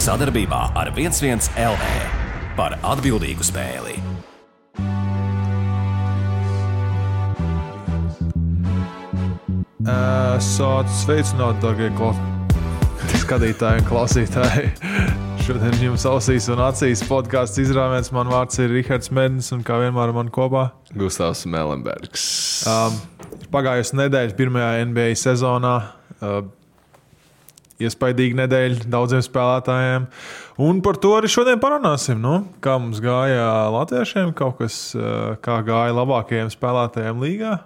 Sadarbībā ar 11 LV par atbildīgu spēli. Sveicināt, dārgie skatītāji un klausītāji. Šodien jums ausīs un acīs podcasts izrāviens. Man vārds ir Rihards Mednis un kā vienmēr man kopā Gustavs Melenbergs. Pagājusi nedēļa pirmajā NBA sezonā. Iespaidīga nedēļa daudziem spēlētājiem. Un par to arī šodien parunāsim. Kā mums gāja latviešiem, kaut kas, kā gāja labākajiem spēlētājiem līgā.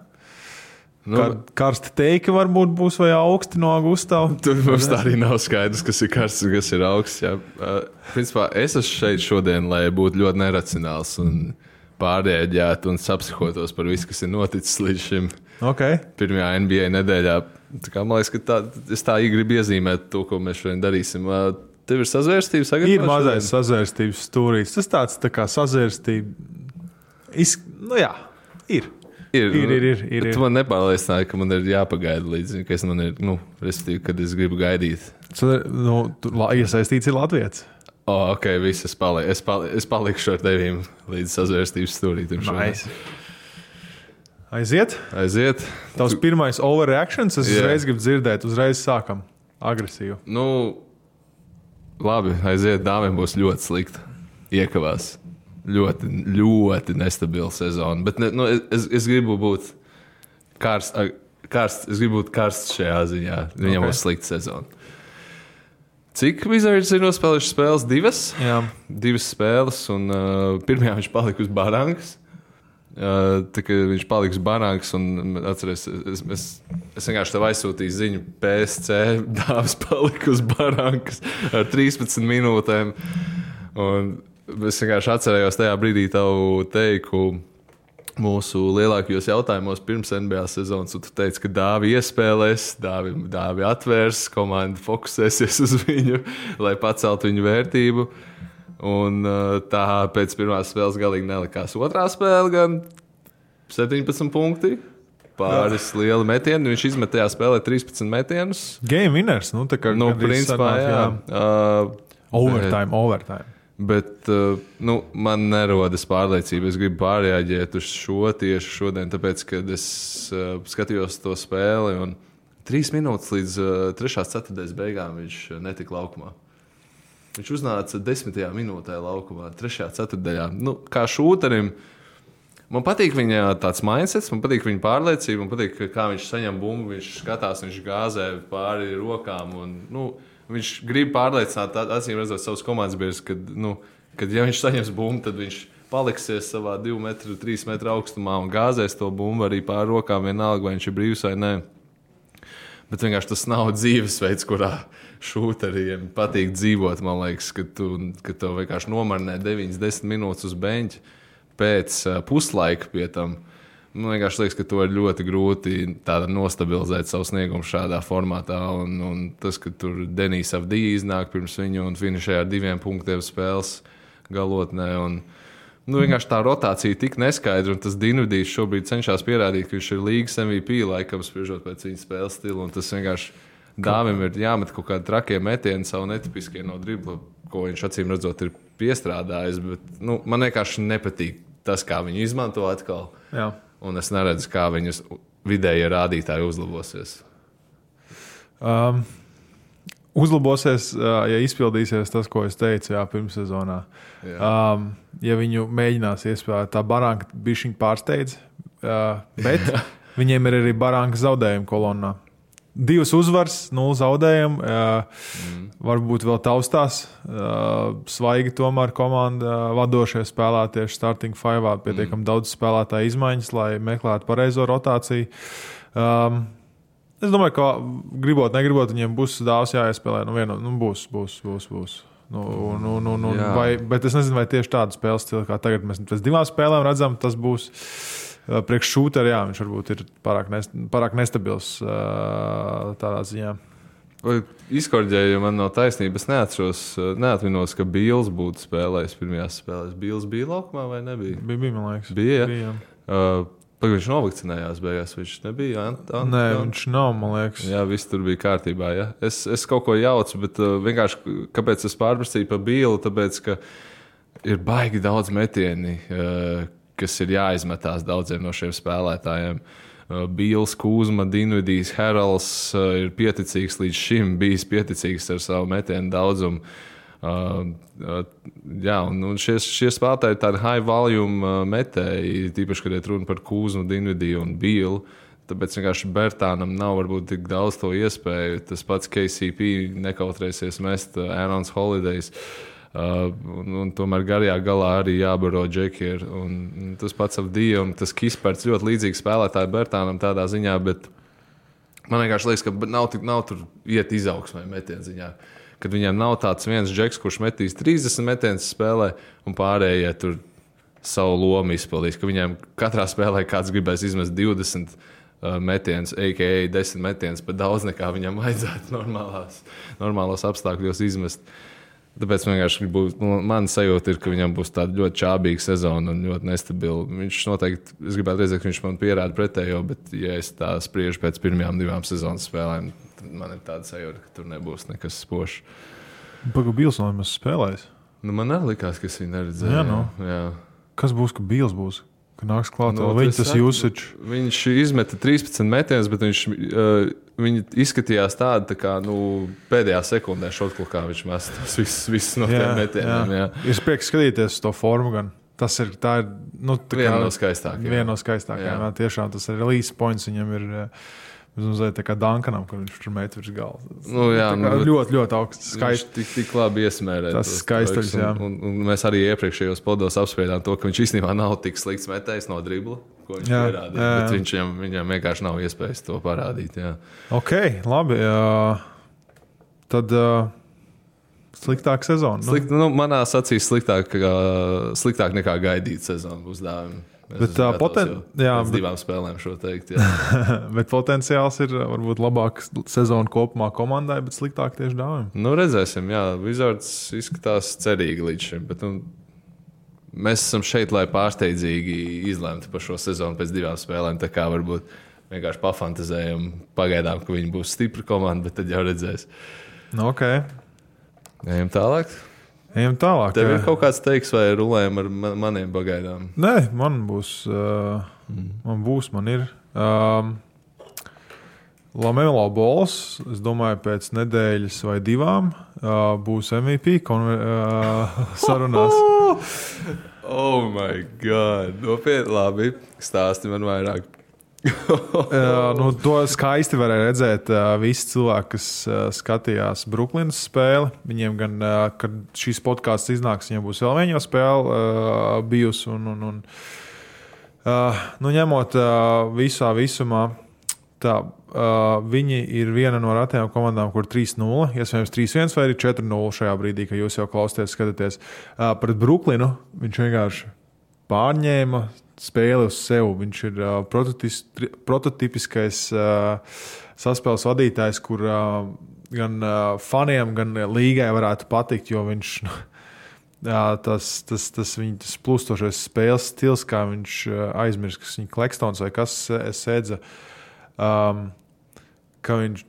Karsti teika varbūt būs vai augsti no Gustava. Tur mums tā arī nav skaidrs, kas ir karsts un kas ir augsts. Principā es esmu šeit šodien, lai būtu ļoti neracionāls un pārrēģētu un sapsihotos par visu, kas ir noticis līdz šim pirmajā NBA nedēļā. Man liekas, ka es tā gribu iezīmēt to, ko mēs šodien darīsim. Tev ir sazvērstības sagatavošana? Ir mazais sazvērstības stūrīts. Tas tāds tā kā sazvērstība. Ir. Tu man nepārliecināji, ka man ir jāpagaida līdz, ka man ir, respektīvi, kad es gribu gaidīt. Iesaistīts ir Latvijas. Viss, es palikšu ar tevīm līdz sazvērstības stūrītim. Nice. Aiziet? Tavs pirmais overreactions, es uzreiz gribu dzirdēt, uzreiz sākam agresīvu. Labi, aiziet, dāmiem būs ļoti slikti. Iekavās. Ļoti, ļoti nestabila sezona. Bet es gribu būt karsts. Es gribu būt karsts šajā ziņā. Viņam būs slikta sezona. Cik Wizards ir nospēlējuši spēles? 2? Jā. 2 spēles, un pirmajā viņš palika uz barankas. Tā kā viņš palika uz barankas, un atceries, es vienkārši tev aizsūtīju ziņu PSC, dāvs palika uz barankas ar 13 minūtēm. Un es vienkārši atcerējos tajā brīdī tavu teiku mūsu lielākajos jautājumos pirms NBA sezonas, un tu teici, ka Dāvi iespēlēs, Dāvi atvērs, komanda fokusēsies uz viņu, lai paceltu viņu vērtību. Un tā pēc pirmās spēles galīgi nelikās. Otrā spēle gan 17 punkti, pāris lieli metieni. Viņš izmet tajā spēlē 13 metienus. Game winners, tā kā principā, jā. Overtime. Bet man nerodas pārliecība. Es gribu pārreaģēt uz šo tieši šodien, tāpēc, kad es skatījos to spēli un 3 minūtes līdz 3. ceturtdaļas beigām viņš netika laukumā. Viņš uznāca 10. minūtē laukumā, 3. ceturtdaļā. Kā šūterim, man patīk viņa tāds mindsets, man patīk viņa pārliecība, man patīk, kā viņš saņem bumbu, viņš skatās, viņš gāzē pāri rokām un, viņš grib pārliecināt, acīm redzot, savus komandas biedrus, kad ja viņš saņems bumbu, tad viņš paliksies savā 2 metru, 3 metru augstumā un gāzēs to bumbu arī pāri rokām, vienalga, vai viņš ir brīvs vai nē. Bet vienkārši tas nav dzīvesveids, kurā šūteriem patīk dzīvot. Man liekas, ka tev vienkārši nomarinē 9-10 minūtes uz beņķa pēc puslaika pie tam. Man vienkārši liekas, ka to ir ļoti grūti nostabilizēt savu sniegumu šādā formātā. Un tas, ka tur Denis Avdija iznāk pirms viņu un finišē ar 2 punktiem spēles galotnē. Vienkārši tā rotācija tik neskaidra, un tas Dinvidijs šobrīd cenšas pierādīt, ka viņš ir līgas MVP, laikam spriežot pēc viņa spēles stila. Un tas vienkārši Dāvim ir jāmet kaut kādi trakie metieni, savu netipiskie no dribla, ko viņš acīm redzot ir piestrādājis. Bet man vienkārši nepatīk tas, kā viņi izmanto atkal. Jā. Un es neredzu, kā viņas vidējie rādītāji uzlabosies. Uzlabosies, ja izpildīsies tas, ko es teicu pirmssezonā. Ja viņu mēģinās iespēlēt, tā baranka bišķiņ pārsteidz, bet viņiem ir arī baranka zaudējumi kolonnā. 2 uzvaras, 0 zaudējumi, varbūt vēl taustās. Svaigi tomēr komanda vadošie spēlē tieši starting 5, pietiekam daudz spēlētāju izmaiņas, lai meklētu pareizo rotāciju. Es domāju, ka gribot, negribot, viņiem būs Dāvs jāiespēlē. Būs. Bet es nezinu, vai tieši tādu spēles stilu, kā tagad mēs pēc 2 spēlēm redzam, tas būs priekš šūteri, viņš varbūt ir pārāk nestabils tādā ziņā. Izkorģēju, ja man nav taisnība. Es neatminos, ka Bīls būtu spēlējis pirmajās spēlēs. Bīls bija laukumā vai nebija? Bija, man liekas. Bija. Viņš novakcinējās beigās, viņš nebija. Nē, viņš nav, man liekas. Jā, viss tur bija kārtībā. Ja? Es kaut ko jaucu, bet vienkārši, kāpēc es pārprasīju par Bīlu, tāpēc, ka ir baigi daudz metieni, kas ir jāizmetās daudziem no šiem spēlētājiem. Bīls, Kūzma, Dinvidijs, Heralds ir pieticīgs līdz šim, bijis pieticīgs ar savu metienu daudzumu. Jā, un šie spēlētāji ir tādi high volume metēji, tīpaši, kad ir runa par Kūzmu, Dinvidiju un Bīlu. Tāpēc vienkārši Bertānam nav varbūt tik daudz to iespēju. Tas pats KCP nekautrēsies mest Aarons Holidays. Un tomēr garajā galā arī jābaro Džekier. Un tas pats Avdija un tas Kisperts ļoti līdzīgi spēlētāji Bertānam tādā ziņā, bet man vienkārši liekas, ka nav tur iet izaugsmē metienu ziņā. Kad viņiem nav tāds viens džeks, kurš metīs 30 metienus spēlē, un pārējie tur savu lomu izpildīs. Ka viņiem katrā spēlē kāds gribēs izmest 20 metienus, a.k.a. 10 metienus, pat daudz nekā viņam vajadzētu normālos apstākļos izmest. Tāpēc vienkārši man sajūta ir, ka viņam būs tāda ļoti čābīga sezona un ļoti nestabila. Viņš noteikti, es gribētu redzēt, ka viņš man pierāda pretējo, bet ja es tā spriežu pēc pirmajām 2 sezonas spēlēm, man ir tāda sajūta, ka tur nebūs nekas spožs. Pagaidām, Bīls nav nemaz spēlējis. Man arī likās, ka es viņu neredzēju. Jā, no. Jā. Kas būs, ka Bīls būs? Ka nāks klāt viņa tas usage? Viņš izmeta 13 metienus, bet viņi izskatījās tādi, tā kā pēdējā sekundē šotklukā viņš mest visus no tiem metieniem. Jā. Ir prieks skatīties to formu gan. Tā ir viena no skaistākajām. Viena no skaistākajām, jā. Tiešām tas ir release points viņam ir... Mazliet tā kā Duncanam, kad viņš tur met virs galda. Ļoti, ļoti augsts. Skaisti. Viņš tik labi iesmērē. Tas skaistuļs, jā. Un mēs arī iepriekšējos podos apspriedām to, ka viņš īstenībā nav tik slikts metējs no dribla, ko viņš pierādīja. Bet viņam vienkārši nav iespējas to parādīt. Jā. Ok, labi. Tad sliktāk sezona. Manās acīs sliktāk nekā gaidīt sezonu būs dāvima. Bet 2 spēlēm šo teikt. Bet potenciāls ir varbūt labāks sezona kopumā komandai, bet sliktāk tieši dāvim. Redzēsim, jā. Wizards izskatās cerīgi līdz šim. Bet, mēs esam šeit, lai pārsteidzīgi izlemtu par šo sezonu pēc 2 spēlēm. Tā kā varbūt vienkārši pafantazējam pagaidām, ka viņi būs stipra komanda, bet tad jau redzēs. Ok. Ejam tālāk. Tev ir kaut kāds teiks, vai rulējam ar maniem pagaidām? Nē, man būs. Man ir. Lamelo Balls, es domāju, pēc nedēļas vai 2 būs MVP sarunās. Oh my God! Nopietni, labi. Stāsti man vairāk. To skaisti varēja redzēt visi cilvēki, kas skatījās Brooklynas spēli. Viņiem gan, kad šīs podcasts iznāks, viņiem būs vēl viena spēle bijusi. Ņemot visā visumā, viņi ir viena no retajām komandām, kur 3-0, iespējams 3-1 vai arī 4-0 šajā brīdī, kad jūs jau klausāties, skatāties. Pret Brooklynu viņš vienkārši pārņēma spēli uz sevi. Viņš ir prototipiskais saspēles vadītājs, kur gan faniem, gan līgai varētu patikt, jo viņš tas viņa plūstošais spēles stils, kā viņš aizmirst, kas viņa Klekstons vai kas sēdza, ka viņš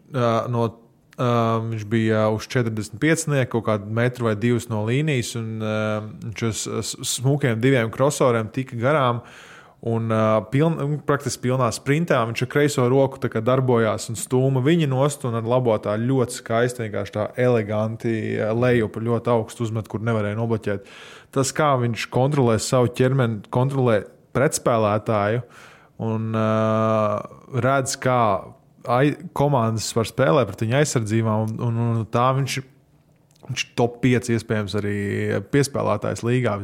viņš bija uz 45, kaut kādu metru vai 2 no līnijas, un viņš uz smukiem 2 crossoveriem tika garām, un praktiski pilnā sprintā viņš ar kreiso roku darbojās un stūma viņa nost, un ar labo tā ļoti skaisti, vienkārši tā eleganti lejupa, ļoti augstu uzmet, kur nevarēja nobloķēt. Tas, kā viņš kontrolē savu ķermeni, kontrolē pretspēlētāju, un redz, kā komandas var spēlēt pret viņa aizsardzībām, un tā viņš top 5 iespējams arī piespēlētājs līgā.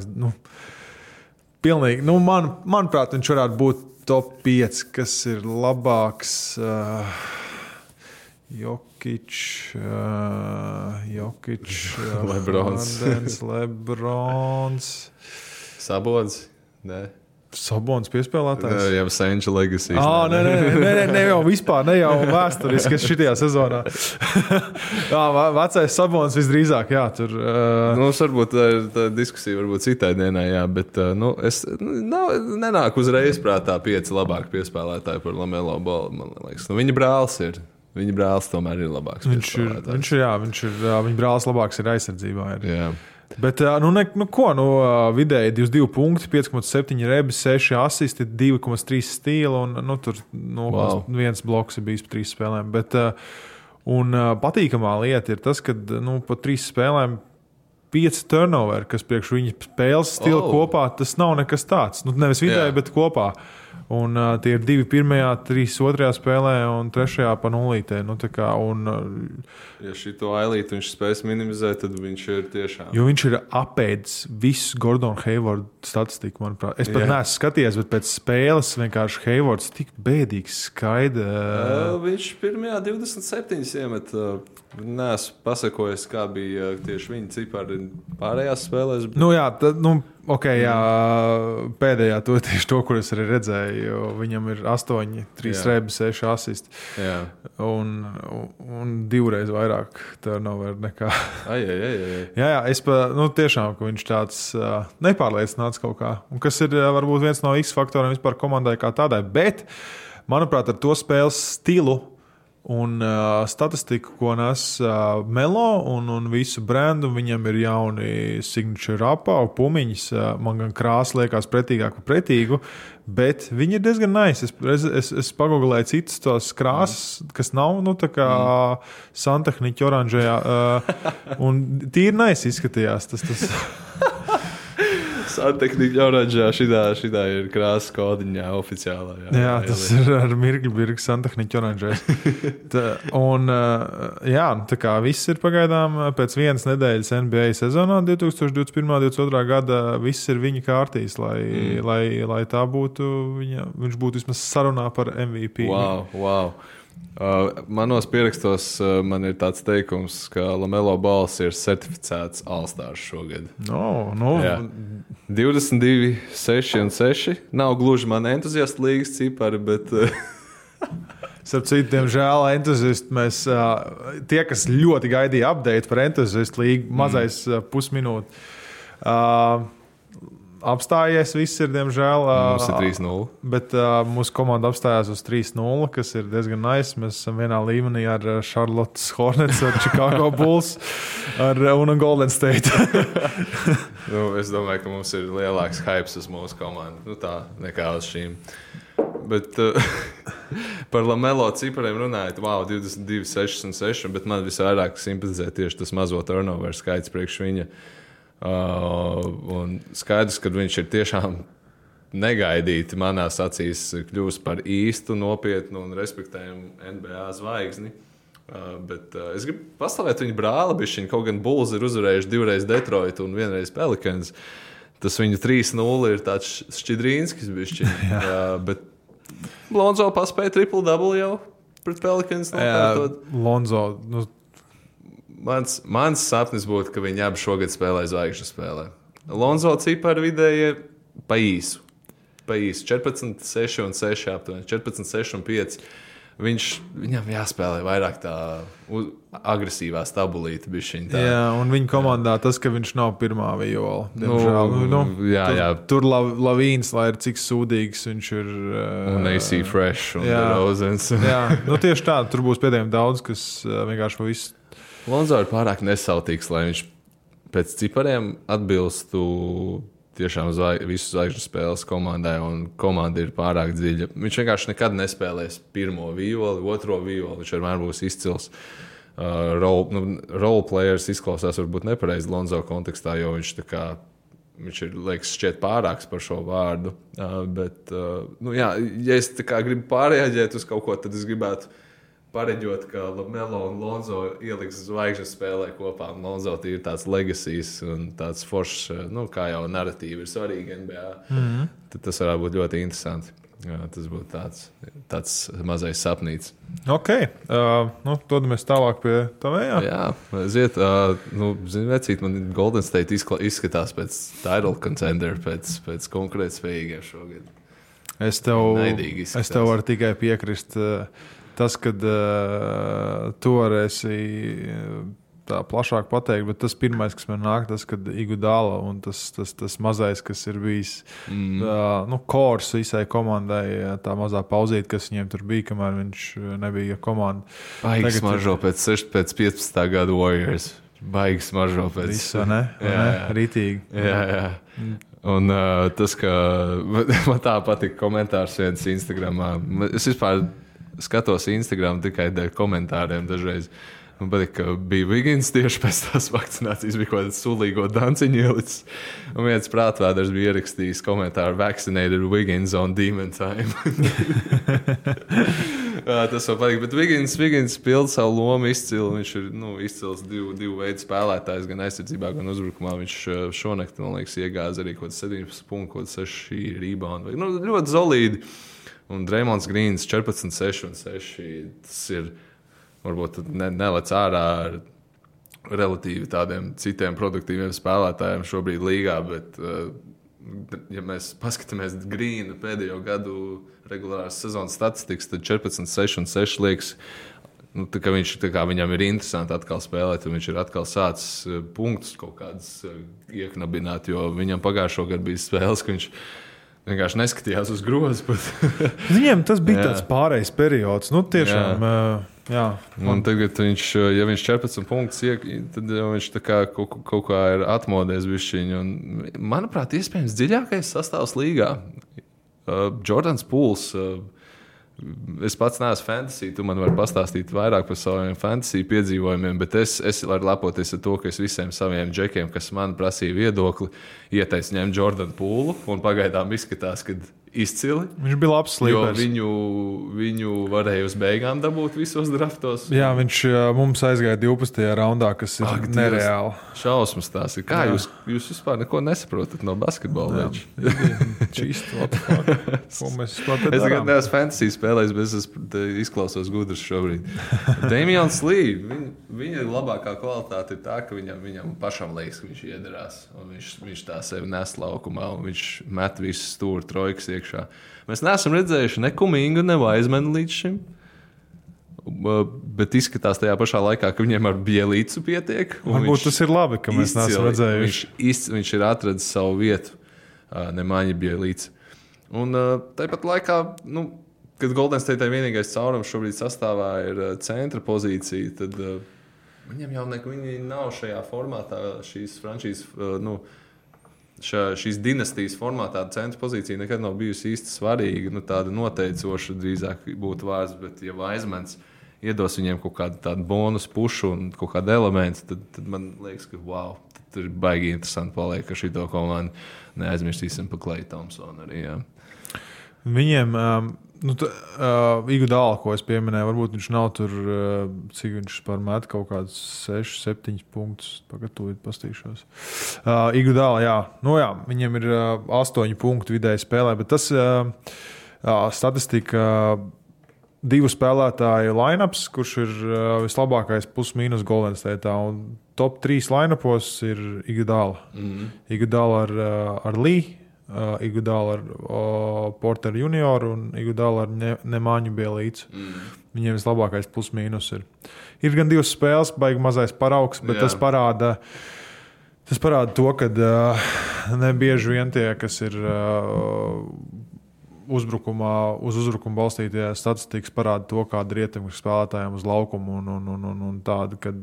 Pilnīgi, manuprāt, viņš varētu būt top 5, kas ir labāks. Jokic, Lebrons. Lebrons. Sabonis? Nē. Sabons piespēlētājs. Jā, jau Senča legacy. Nē, jau vispār, ne jau vēsturiski šitajā sezonā. Jā, vecais Sabons visdrīzāk, jā, tur. Varbūt tā diskusija varbūt citai dienai, jā, bet es nenāku uzreiz prātā 5 labāki piespēlētāji par Lamelo Ballu, man liekas. Viņa brālis ir. Viņa brālis tomēr ir labāks. Viņa brālis labāks ir aizsardzībā. Jā. Bet, vidēji 22 punkti, 5,7 rebis, 6 asisti, 2,3 stīla un tur 1 bloks ir bijis pa 3 spēlēm. Bet, patīkamā lieta ir tas, ka pa 3 spēlēm 5 turnover, kas priekš viņa spēles stila kopā, tas nav nekas tāds. Nevis vidēji, bet kopā. Un tie ir 2 pirmajā, 3 otrajā spēlē un 3 pa nulītē. Ja šito ailīti viņš spēs minimizēt, tad viņš ir tiešām. Jo viņš ir apēdis visu Gordonu Haywardu statistiku, manuprāt. Es pat neesmu skatījies, bet pēc spēles vienkārši Haywards tik bēdīgs skaidrs. Viņš pirmajā 27 iemet. Neesmu pasakojis, kā bija tieši viņa cipari pārējās spēlēs. Pēdējā tieši to, kur es arī redzēju, viņam ir 8, 3 rebis, 6 asisti. Un 2 reiz vairāk turnover nekā. Jā, es tiešām, ka viņš tāds nepārliecināts kaut kā. Un kas ir varbūt viens no X faktoriem vispār komandai kā tādai. Bet, manuprāt, ar to spēles stilu un statistiku, ko nes Melo un visu brendu, viņam ir jauni signature apau, pumiņas. Man gan krāsa liekas pretīgāk par pretīgu, bet viņi ir diezgan nice. Es pagooglēju citas tos krāsas, kas nav, tā kā santehniķa oranžajā. Un tīri nice izskatījās. Tas. Santehniķa oranžā, šitā ir krāsas kodiņā oficiālā. Jā, tas ir ar mirkļu santehniķa oranžais. Tā kā viss ir pagaidām pēc 1 nedēļas NBA sezonā 2021.-2022. gada, viss ir viņa kārtīs, lai tā būtu, viņš būtu vismaz sarunā par MVP. Wow. Manos pierakstos man ir tāds teikums, ka Lamelo Balls ir certificēts All-Stars šogad. 22, 6 un 6. Nav gluži man entuziastu līgas cipari, bet... Starp citu, diemžēl entuziasti mēs, tie, kas ļoti gaidīja update par entuziastu līgu, mazais pusminūti. Apstājies, viss ir, diemžēl. Mums ir 3-0. Bet mūsu komanda apstājās uz 3-0, kas ir diezgan nice. Mēs esam vienā līmenī ar Charlottes Hornets, ar Chicago Bulls un Golden State. Es domāju, ka mums ir lielāks hypes uz mūsu komandu. Tā nekā uz šīm. Bet par Lamelo cipariem runājot, 22, 6 un 6, bet man visvairāk simpatizē tieši tas mazo turnover skaits priekš viņa. Un skaidrs, ka viņš ir tiešām negaidīti manās acīs kļūst par īstu, nopietnu un respektējumu NBA zvaigzni. Bet es gribu pastāvēt viņa brāli bišķiņ, kaut gan Bulls ir uzvarējuši 2 reiz Detroit un 1 reiz Pelicans. Tas viņu 3-0 ir tāds šķidrīnskis bišķiņ. Bet Lonzo paspēja triple-double jau pret Pelicans. Lonzo... Mans sapnis būtu, ka viņi abi šogad spēlē zvaigžņu spēlē. Lonzo cipari vidēji pa īsu. 14, 6 un 6 aptuveni. 14, 6 un 5. Viņam jāspēlē vairāk tā agresīvā stabulīta bišķiņ. Jā, un viņa komandā tas, ka viņš nav pirmā viola. Jā. Tur Lavīns, lai ir cik sūdīgs viņš ir. Un AC Fresh un DeRozans. Jā, tieši tā. Tur būs pēdējiem daudz, kas vienkārši pa visu. Lonzo ir pārāk nesautīgs, lai viņš pēc cipariem atbilstu tiešām visu zvaigžņu spēles komandai, un komanda ir pārāk dziļa. Viņš vienkārši nekad nespēlēs pirmo violi, otro violi. Viņš vienmēr būs izcils. Role players izklausās varbūt nepareizi Lonzo kontekstā, jo viņš ir, liekas, šķiet pārāks par šo vārdu. Ja es gribu pārreaģēt uz kaut ko, tad es gribētu pareģot, ka Lamelo un Lonzo ieliks zvaigžņu spēlē kopā. Lonzo ir tāds legacies un tāds foršs, kā jau narratīva ir svarīga NBA. Tad tas varētu būt ļoti interesanti. Jā, tas būtu tāds mazais sapnīts. Ok, dodamies tālāk pie tavējā. Jā, aiziet. Zini, vecīt, man Golden State izskatās pēc title contender, pēc konkurētspējīgiem šogad. Es tev varu tikai piekrist. Tas, kad tu varēsi tā plašāk pateikt, bet tas pirmais, kas man nāk, tas, kad Iguodala un tas mazais, kas ir bijis kors visai komandai, tā mazā pauzīte, kas viņiem tur bija, kamēr viņš nebija komanda. Baigs mažo pēc 15. gada Warriors. Baigs mažo pēc... Visu, ne? Rītīgi. Jā. Un tas, ka man tā patika komentārs viens Instagramā. Es vispār skatos Instagram tikai dēļ komentāriem dažreiz. Man patīk, ka bija Wiggins tieši pēc tās vakcinācijas, bija kaut kāds sulīgo danciņu ielicis. Un viens prātvēders bija ierakstījis komentāru "Vaccinated Wiggins on demon time". Tas man patīk, bet Wiggins pilda savu lomu izcili. Viņš ir izcils divu veidu spēlētājs, gan aizsardzībā, gan uzbrukumā. Viņš šonakt, man liekas, iegāza arī kaut 17 punktu, kaut 6 reboundu. Ļoti solīdi. Un Draymonds Greens 14, 6 un 6. Tas ir... Varbūt nelec ārā ar relatīvi tādiem citiem produktīviem spēlētājiem šobrīd līgā, bet, ja mēs paskatāmies Grīna pēdējo gadu regulārās sezonas statistikas, tad 14, 6 un 6 liekas, viņam ir interesanti atkal spēlēt, un viņš ir atkal sācis punktus kaut kādas ieknabināt, jo viņam pagājušo gadu bija spēles, ka viņš vienkārši neskatījās uz grozu. Viņiem tas bija tāds pārējais periods. Tiešām... Jā, un tagad ja viņš 14 punktus tad viņš kaut kā ir atmodies bišķiņu. Manuprāt, iespējams dziļākais sastāvs līgā. Jordans Pools. Es pats neesmu fantasy, tu man vari pastāstīt vairāk par saviem fantasy piedzīvojumiem, bet es varu lepoties ar to, ka es visiem saviem džekiem, kas man prasīja viedokli, ieteicu ņemt Jordanu Poolu, un pagaidām izskatās, ka izcili. Viņš bija labs slīpers. Jo viņu varēja uz beigām dabūt visos draftos. Jā, viņš mums aizgāja 12. raundā, kas ir nereāli. Šausmas tās ir. Kā jūs vispār neko nesaprotat no basketbola? Čīst, ko mēs vispār te darām? Es tagad neesmu fantasy spēlējis, bet es izklausos gudrs šobrīd. Damians Lee, viņa labākā kvalitāte ir tā, ka viņam pašam liekas, ka viņš iederās. Un viņš tā sevi nes laukumā, un viņš met visus stūri trojkas iekšā. Mēs neesam redzējuši ne Kumingu, ne Vaizmanu līdz šim. Bet izskatās tajā pašā laikā, ka viņiem ar Bielīcu pietiek. Varbūt tas ir labi, ka mēs neesam redzējuši. Viņš ir atradis savu vietu, Nemaņa Bielīca. Un tāpat laikā, kad Golden State vienīgais caurums šobrīd sastāvā ir centra pozīcija, tad viņam jau viņi nav šajā formātā šīs frančīzes, šīs dinastijas formātā centra pozīcija nekad nav bijusi īsti svarīga. Tāda noteicoša drīzāk būtu vārds, bet ja Vaizmans iedos viņiem kaut kādu tādu bonus pušu un kaut kādu elementu, tad man liekas, ka wow, tad ir baigi interesanti paliek, ka šito komandu neaizmirstīsim pa Klay Thompsonu arī. Jā. Viņiem... Iguodala, ko es pieminēju, varbūt viņš nav tur, cik viņš pārmet kaut kādus 6, 7 punktus. Pagatavot, pastīšos. Iguodala, jā. Viņam ir 8 punktu vidēji spēlē, bet tas statistika 2 spēlētāju line-ups, kurš ir vislabākais plus-mínus Golden State. Un top 3 line-upos ir Iguodala. Iguodala ar Lee. Iguodala ar Porter Junior un Iguodala ar Nemaņu Bielīcu. Viņiem vislabākais plus-mínus ir. Ir gan 2 spēles, baigi mazais paraugs, bet tas parāda to, ka nebieži vien tie, kas ir uz uzbrukumu balstītie statistikas, parāda to, kāda ir ietekme spēlētājiem uz laukumu un tāda, kad...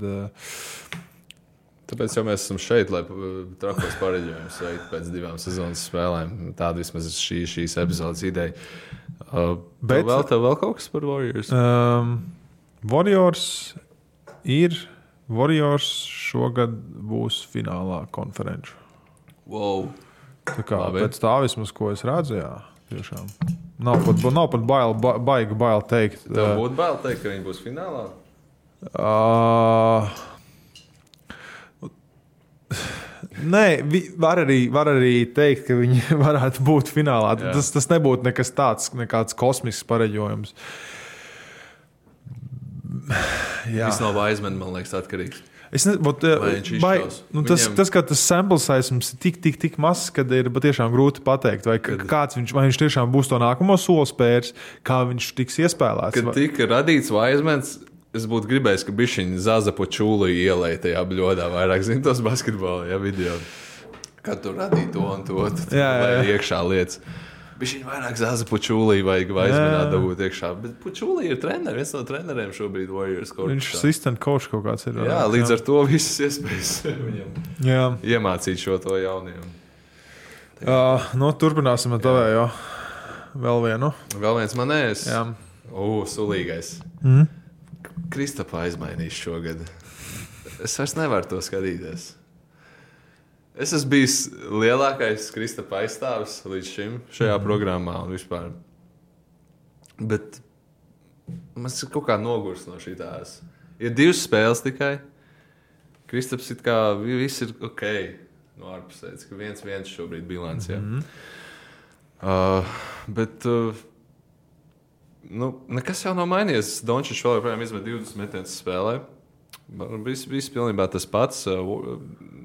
Tāpēc jau mēs esam šeit, lai trakos pareģojumus veiktu pēc 2 sezonas spēlēm. Tāda vismaz ir šīs epizodes ideja. Tev vēl kaut kas par Warriors? Warriors šogad būs finālā konferenču. Wow. Tā kā pēc tā vismaz, ko es redzu, jā, tiešām. Nav pat baigi teikt. Tev būtu bail teikt, ka viņi būs finālā? Nē, var arī teikt, ka viņi varētu būt finālā. Tas nebūtu nekas tāds, nekāds kosmisks pareģojums. Viss no Wiseman, man liekas, atkarīgs. Tas, ka tas sample size mums ir tik mazs, kad ir patiešām grūti pateikt, vai viņš tiešām būs to nākamo soli spērs, kā viņš tiks iespēlēts. Kad tika radīts Wisemans, es būtu gribējis, ka bišķiņi Zaza po čūlu ielēja tajā bļodā vairāk, zin tos basketbola video. Kad tu radīji to un to, tad iekšā lietas. Bišķiņi vairāk Zaza po čūlī vajag Wisemanā dabūt iekšā. Bet po čūlī ir treneri, viens no treneriem šobrīd Warriors. Viņš assistant coach kaut kāds ir. Jā, līdz ar to visas iespējas viņam iemācīt šo to jauniem. Turpināsim ar tavējo. Vēl vienu. Vēl viens manējs. Sulīgais. Kristapa aizmainīs šogad. Es vairs nevaru to skatīties. Es esmu bijis lielākais Kristapa aizstāvis līdz šim šajā programmā un vispār. Bet man ir kaut kā nogurs no šitās. Ir 2 spēles tikai. Kristaps it kā viss ir ok no ārpusēdz, ka 1-1 šobrīd bilants. Bet nekas jau nav mainījies. Dončičs vēl joprojām izmet 20 metienus spēlē. Viss pilnībā tas pats.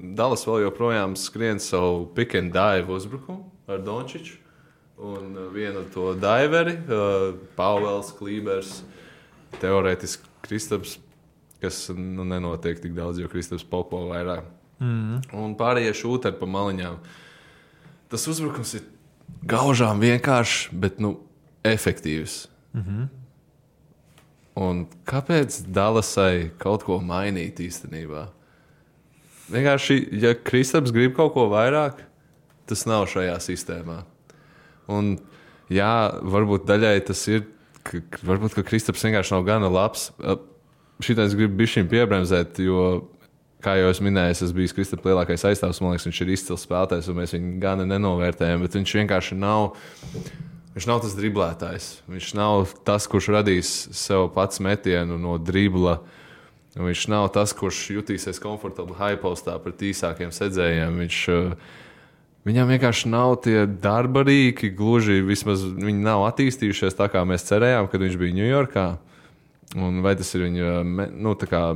Dallas vēl joprojām skrien savu pick and dive uzbrukumu ar Dončiču. Un vienu to diveri, Pauels, Klībers, teorētiski Kristaps, kas nenotiek tik daudz, jo Kristaps popo vairāk. Un pārējie šūteri pa maliņām. Tas uzbrukums ir gaužām vienkāršs, bet efektīvs. Un kāpēc Dallasai kaut ko mainīt īstenībā? Vienkārši, ja Kristaps grib kaut ko vairāk, tas nav šajā sistēmā. Un varbūt daļai tas ir, varbūt, ka Kristaps vienkārši nav gana labs. Šitais grib bišķiņ piebremzēt, jo, kā jau es minēju, es biju Kristapa lielākais aizstāvs, man liekas, viņš ir izcils spēlētājs, un mēs viņu gana nenovērtējam, bet viņš vienkārši nav... Viņš nav tas driblētājs. Viņš nav tas, kurš radīs sev pats metienu no dribla. Viņš nav tas, kurš jutīsies komfortabli high postā pret īsākiem sedzējiem. Viņam vienkārši nav tie darba rīki, gluži vismaz viņi nav attīstījušies tā, kā mēs cerējām, kad viņš bija Ņujorkā. Un vai tas ir viņa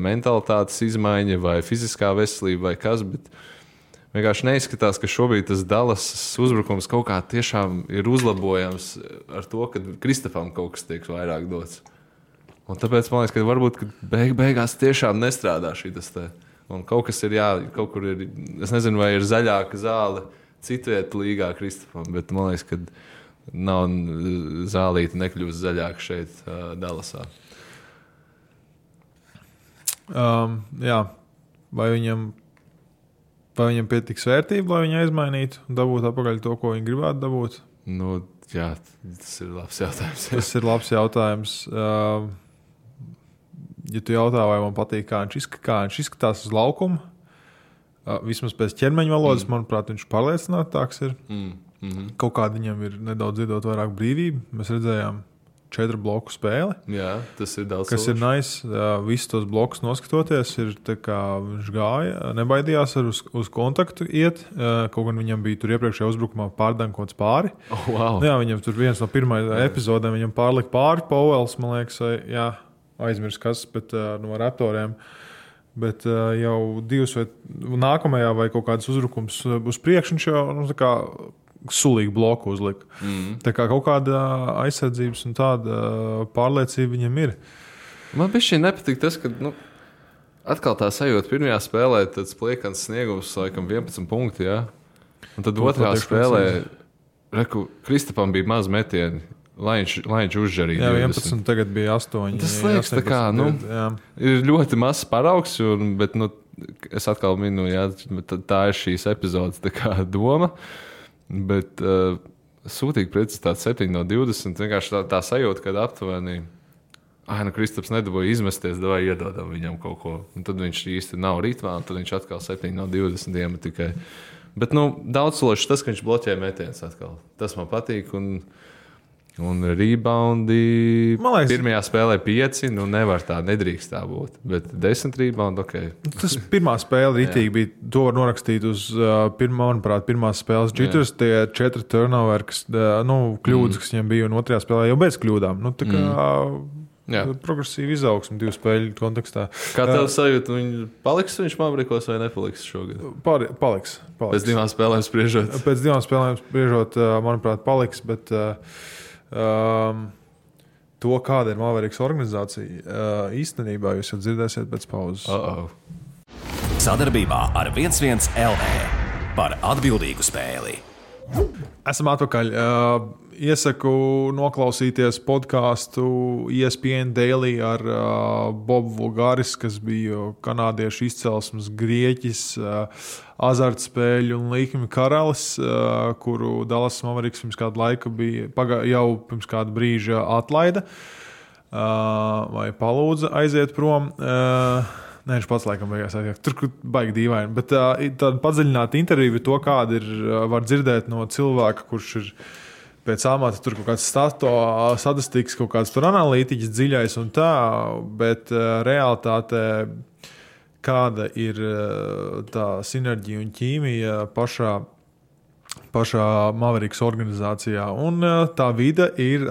mentalitātes izmaiņa vai fiziskā veselība vai kas, bet vienkārši neizskatās, ka šobrīd tas Dallas uzbrukums kaut kā tiešām ir uzlabojams ar to, ka Kristapam kaut kas tiek vairāk dots. Un tāpēc man liekas, ka varbūt beigās tiešām nestrādā šitas te. Un kaut kas ir kaut kur ir, es nezinu, vai ir zaļāka zāle citvieta līgā Kristapam, bet man liekas, ka nav zālīte nekļūst zaļāka šeit Dallasā. Vai viņam pietiks vērtība, lai viņu aizmainītu un dabūtu atpakaļ to, ko viņi gribētu dabūt? Tas ir labs jautājums. Tas ir labs jautājums. Ja tu jautā, vai man patīk, kā viņš izskatās uz laukuma, vismaz pēc ķermeņa valodas, manuprāt, viņš pārliecinātāks ir. Kaut kāda viņam ir nedaudz iedot vairāk brīvību. Mēs redzējām 4 bloku spēli. Jā, tas ir daudz. Kas ir nice. Visus tos blokus noskatoties, ir tā kā viņš gāja, nebaidījās uz kontaktu iet. Kaut gan viņam bija tur iepriekšējā uzbrukumā pārdankots pāri. Wow. Jā, viņam tur viens no pirmajām epizodēm viņam pārlika pāri Pauels, man liekas, aizmirs kas, bet no Raptoriem. Bet jau 2 vai nākamajā vai kaut kādas uzbrukums uz priekšu viņš jau tā kā sulīgu bloku uzlika. Tā kā kaut kāda aizsardzības un tāda pārliecība viņam ir. Man bišķi nepatīk tas, ka atkal tā sajūta pirmajā spēlē, tāds pliekans sniegums, laikam 11 punkti, jā. Un tad otrā spēlē, Kristapam bija maz metieni, lai viņš uzžarīja 20. 11, tagad bija 8. Tas liekas, tā kā, ir ļoti mazs paraugs, bet es atkal minu, tā ir šīs epizodes tā kā doma. Bet sūtīgi precizitāte 7 no 20. Vienkārši tā sajūta, kad aptuveni Kristaps nedabūja izmesties, davai iedodam viņam kaut ko. Un tad viņš īsti nav ritmā, un tad viņš atkal 7 no 20 iemet tikai. Bet daudz sološi tas, ka viņš bloķē metienus atkal. Tas man patīk. Un Un reboundi Man liekas, pirmajā spēlē 5, nu nevar tā, nedrīkst tā būt. Bet 10 reboundi, ok. Tas pirmā spēle ritīgi bija. To var norakstīt uz manuprāt, pirmās spēles jitters. Tie 4 turnover, kļūdas, kas viņam bija, un otrajā spēlē jau bez kļūdām. Nu, tā kā progresīva izaugsme 2 spēļu kontekstā. Kā tev sajūta, viņš Mavericos vai nepaliks šogad? Paliks. Pēc 2 spēlēm spriežot? Pēc 2 spēlēm spriežot, manuprāt, paliks, bet to, kāda ir Mavericks organizācija, īstenībā jūs jau dzirdēsiet pēc pauzes. Sadarbībā ar 11 LV par atbildīgu spēli. Esam atpakaļ. Iesaku noklausīties podkāstu ESPN Daily ar Bobu Vulgaris, kas bija kanādiešu izcelsmes grieķis, azartspēļu un līkņu karalis, kuru Dallas Mavericks pirms kādu laiku jau pirms kāda brīža atlaida vai palūdza aiziet prom. Nē, viņš pats laikam beigās aiziet. Tur baigi dīvaini. Bet tāda padziļināta intervija to, kāda var dzirdēt no cilvēka, kurš ir pēc amata tur kaut kāds statistikas, kaut kāds tur analītiķis dziļais un tā, bet realitātē kāda ir tā sinerģija un ķīmija pašā Mavericks organizācijā. Un tā vide ir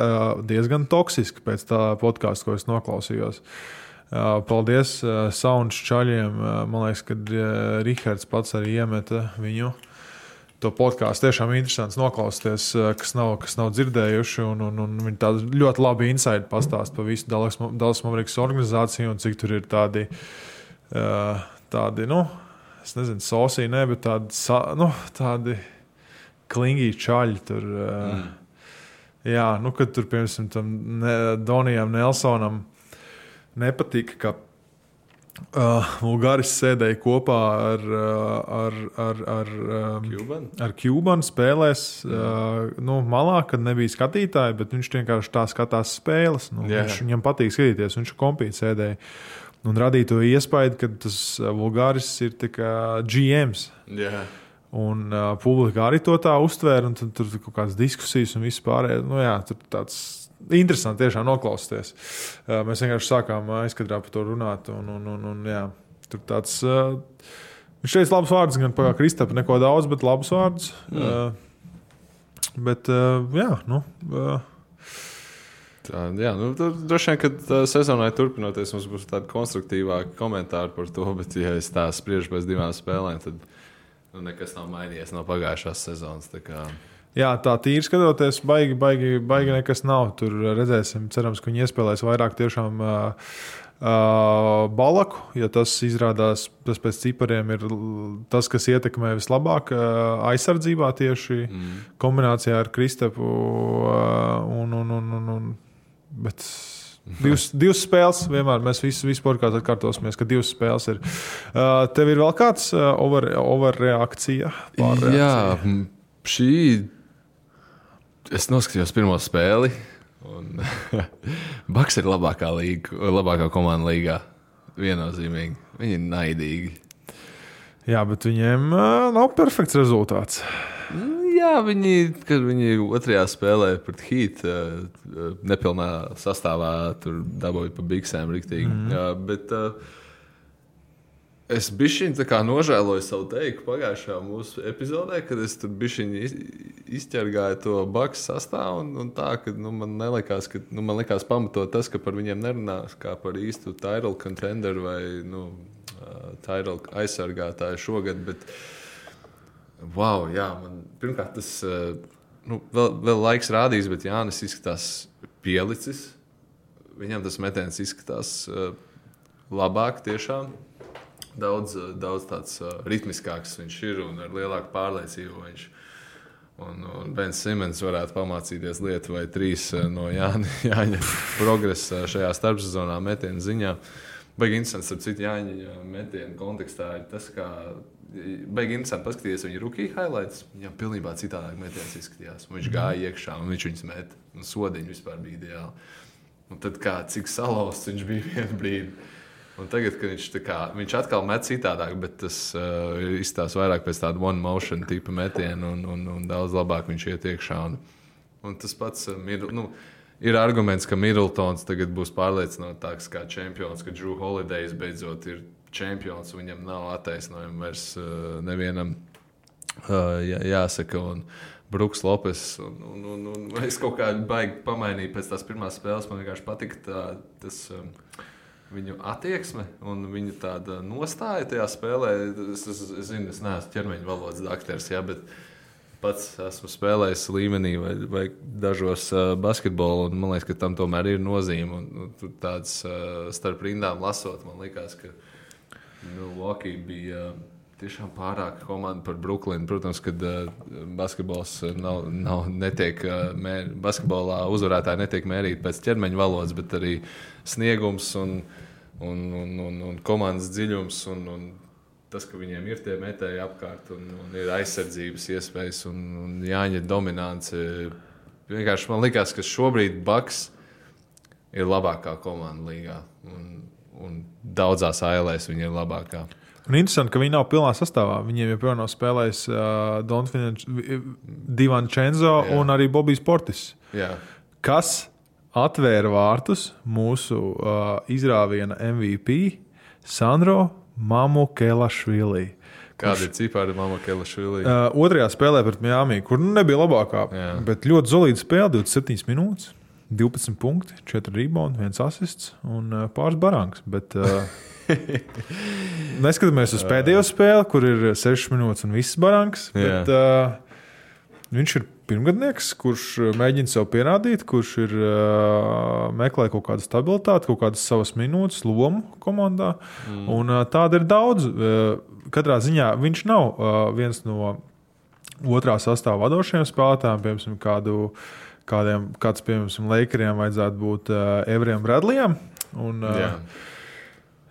diezgan toksiska pēc tā podkāsta, ko es noklausījos. Paldies Sounds čaļiem. Man liekas, ka Rihards pats arī iemeta viņu. To podkāstu tiešām interesants noklausīties, kas nav dzirdējuši. Un viņi tādu ļoti labi insight pastāst par visu Dallas Mavericks organizāciju un cik tur ir tādi es nezinu, sosī, ne, bet tādi klingī čaļi tur. Jā, kad tur, piemēram, tam Donijam Nelsonam nepatika, ka Vulgaris sēdēja kopā ar Cubanu spēlēs malā, kad nebija skatītāji, bet viņš vienkārši tā skatās spēles. Viņam patīk skatīties, viņš kompīt sēdēja. Un radīja to iespēju, ka tas Vulgaris ir tā kā GMs. Yeah. Un publika arī to tā uztvēra, un tur kaut kādas diskusijas un viss pārējais. Tur tāds interesanti tiešām noklausīties. Mēs vienkārši sākām aizkadrā par to runāt. Tur tāds, viņš teica labus vārdus, gan par Kristapa neko daudz, bet labus vārdus. Tur droši vien, kad sezonai turpinoties, mums būs tādi konstruktīvāki komentāri par to, bet ja es tā spriežu pēc 2 spēlēm, tad nekas nav mainījies no pagājušās sezonas. Jā, tā tīri skatoties, baigi nekas nav. Tur redzēsim, cerams, ka viņi iespēlēs vairāk tiešām Balaku, ja tas izrādās, tas pēc cipariem ir tas, kas ietekmē vislabāk aizsardzībā tieši kombinācijā ar Kristapu. Bet divas spēles vienmēr, mēs visi podkāstā atkārtosimies, ka 2 spēles ir. Tev ir vēl kāds overreakcija? Jā, šī... Es noskatījos pirmo spēli, un Bucks ir labākā komanda līgā. Viennozīmīgi. Viņi ir naidīgi. Jā, bet viņiem nav perfekts rezultāts. Jā, kad viņi otrajā spēlē pret Heat nepilnā sastāvā tur dabūja pa biksēm riktīgi. Bet es bišķiņ tā kā nožēloju savu teiku pagājušajā mūsu epizodē, kad es tur bišķiņ izķergāju to Bucks sastāvu un tā, ka man likās pamatot tas, ka par viņiem nerunās kā par īstu title contender vai title aizsargātāju šogad, bet wow, jā, man pirmkārt tas vēl laiks rādīs, bet Jānis izskatās pielicis. Viņam tas metiens izskatās labāk tiešām. Daudz tāds ritmiskāks viņš ir un ar lielāku pārliecību viņš. Un Bens Simons varētu pamācīties lietu vai 3 no Jāņa progresa šajā starpsezonā metienu ziņā. Baigi interesants, ar citu Jāņa metienu kontekstā ir tas, kā baigi interesanti paskatīties viņa rookie highlights. Viņam pilnībā citādāk metiens izskatījās. Viņš gāja iekšā un viņš viņus met. Un sodiņi vispār bija ideāli. Un tad cik salauzts viņš bija vienu brīdi. Un tagad, kad viņš atkal met citādāk, bet tas izstāsta vairāk pēc tāda one motion tipa metiena un daudz labāk viņš iet iekšā. Un tas pats ir arguments, ka Middletons tagad būs pārliecinātāks kā čempions, ka Drew Holiday beidzot ir čempions, un viņam nav attaisnojumi vairs nevienam jāsaka. Un Bruks Lopes, un es kaut kā baigi pamainīju pēc tās pirmās spēles. Man vienkārši patika tas viņu attieksme un viņu tāda nostāja tajā spēlē. Es zinu, es neesmu ķermeņa valodas daktars, bet pats esmu spēlējis līmenī vai dažos basketbolu, un man liekas, ka tam tomēr ir nozīme. Un tur tāds starp rindām lasot, man liekas, ka Milwaukee bija tiešām pārāka komanda par Brooklynu. Protams, kad basketbols netiek basketbolā uzvarētāji netiek mērīti pēc ķermeņa valodas, bet arī sniegums un komandas dziļums un tas, ka viņiem ir tie metēji apkārt un ir aizsardzības iespējas un Jāņa dominance. Vienkārši man likās, ka šobrīd Bucks ir labākā komanda līgā un daudzās ALēs viņi ir labākā. Un interesanti, ka viņi nav pilnā sastāvā. Viņiem joprojām nav spēlējis Divančenzo un arī Bobijs Portis. Jā. Kas atvēra vārtus mūsu izrāviena MVP Sandro Mamukelašvili. Kāda ir cipāra Mamukelašvili? Otrajā spēlē pret Miami, kur nebija labākā, bet ļoti solīda spēle, 27 minūtes, 12 punkti, 4 rebound, 1 asists un pāris barangs. Bet neskatāmies uz pēdējo spēli, kur ir 6 minūtes un viss barangs, bet viņš ir pirmgadnieks, kurš mēģina sev pierādīt, kurš ir meklē kaut kādu stabilitāti, kaut kādas savas minūtes, lomu komandā. Un tāda ir daudz. Katrā ziņā viņš nav viens no otrā sastāva vadošajiem spēlētājiem, piemēram, kāds, piemēram, Lakeriem vajadzētu būt Everijam Bradleyam.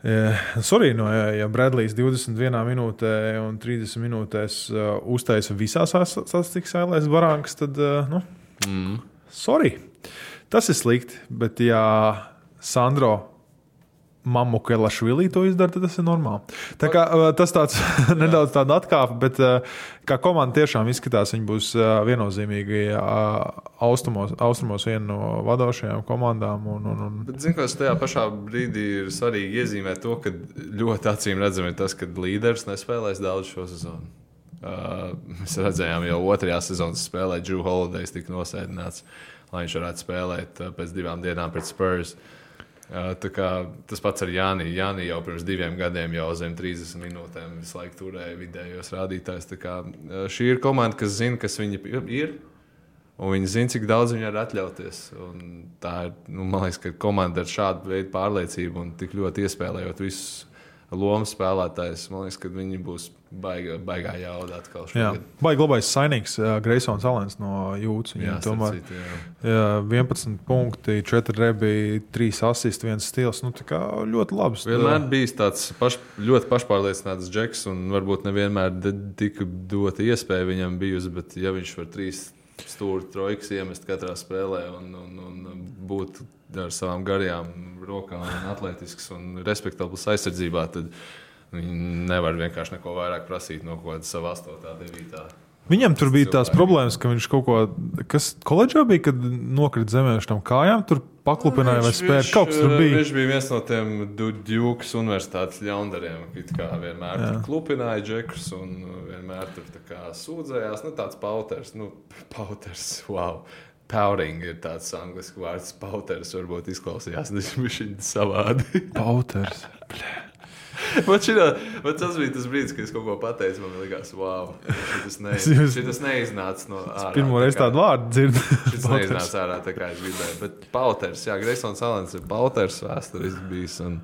Ja Bradleys 21 minūtē un 30 minūtēs uztaisa visās statistikas ailēs barangas, tad, sorry. Tas ir slikti, bet ja Sandro Mamukelašvili to izdara, tad tas ir normāli. Tā kā tas tāds nedaudz tāda atkāpe, bet kā komanda tiešām izskatās, viņi būs viennozīmīgi austrumos viena no vadošajām komandām. Bet zinu, kas tajā pašā brīdī ir svarīgi iezīmēt to, ka ļoti acīm redzam ir tas, ka līderis nespēlēs daudz šo sezonu. Mēs redzējām jau otrajā sezonas spēlē Drew Holiday tika nosēdināts, lai viņš varētu spēlēt pēc 2 dienām pret Spurs. Tas pats ar Jāni. Jāni jau pirms 2 gadiem jau zem 30 minūtēm visu laiku turēja vidējos rādītājus. Šī ir komanda, kas zina, kas viņi ir, un viņi zina, cik daudz viņi var atļauties. Un tā ir, man liekas, ka komanda ar šādu veidu pārliecību un tik ļoti iespēlējot visus lomu spēlētājus, man liekas, ka viņi būs baigā jauda atkal šogad. Baigi labais sainīgs Greisons Alens no Jūtas. Viņam tomēr 11 punkti, 4 rebi, 3 asisti, 1 stils. Tā kā ļoti labs. Vienmēr bijis tāds ļoti pašpārliecināts džeks un varbūt nevienmēr tika dota iespēja viņam bijusi, bet ja viņš var 3 stūri trojkas iemest katrā spēlē un būt ar savām garajām rokām un atletisks un respektabls aizsardzībā, tad viņi nevar vienkārši neko vairāk prasīt no kaut kāda sava 8. 9. Viņam tur bija tās problēmas, ka viņš kaut ko, kas koledžā bija, kad nokrita zemē uz tam kājām, tur paklupināja vai spēja. Kaut kas tur bija. Viņš bija viens no tiem Dukas universitātes ļaundariem, kā vienmēr tur klupināja džekus un vienmēr tur tā kā sūdzējās. Tāds pauters, wow. Pouting ir tāds anglisku vārds. Pauters varbūt izklausījās, viņš ir savādi. Pauters. Tas bija tas brīdis, kad es kaut ko pateicu. Man liekas, wow, šitas neiznāca no ārā. Pirmo reizi tādu vārdu dzirdu. Šitas neiznāca ārā, tā kā es gribēju. Bet Pauters, Greisons Alens ir Pauters vēsturiski bijis. Un,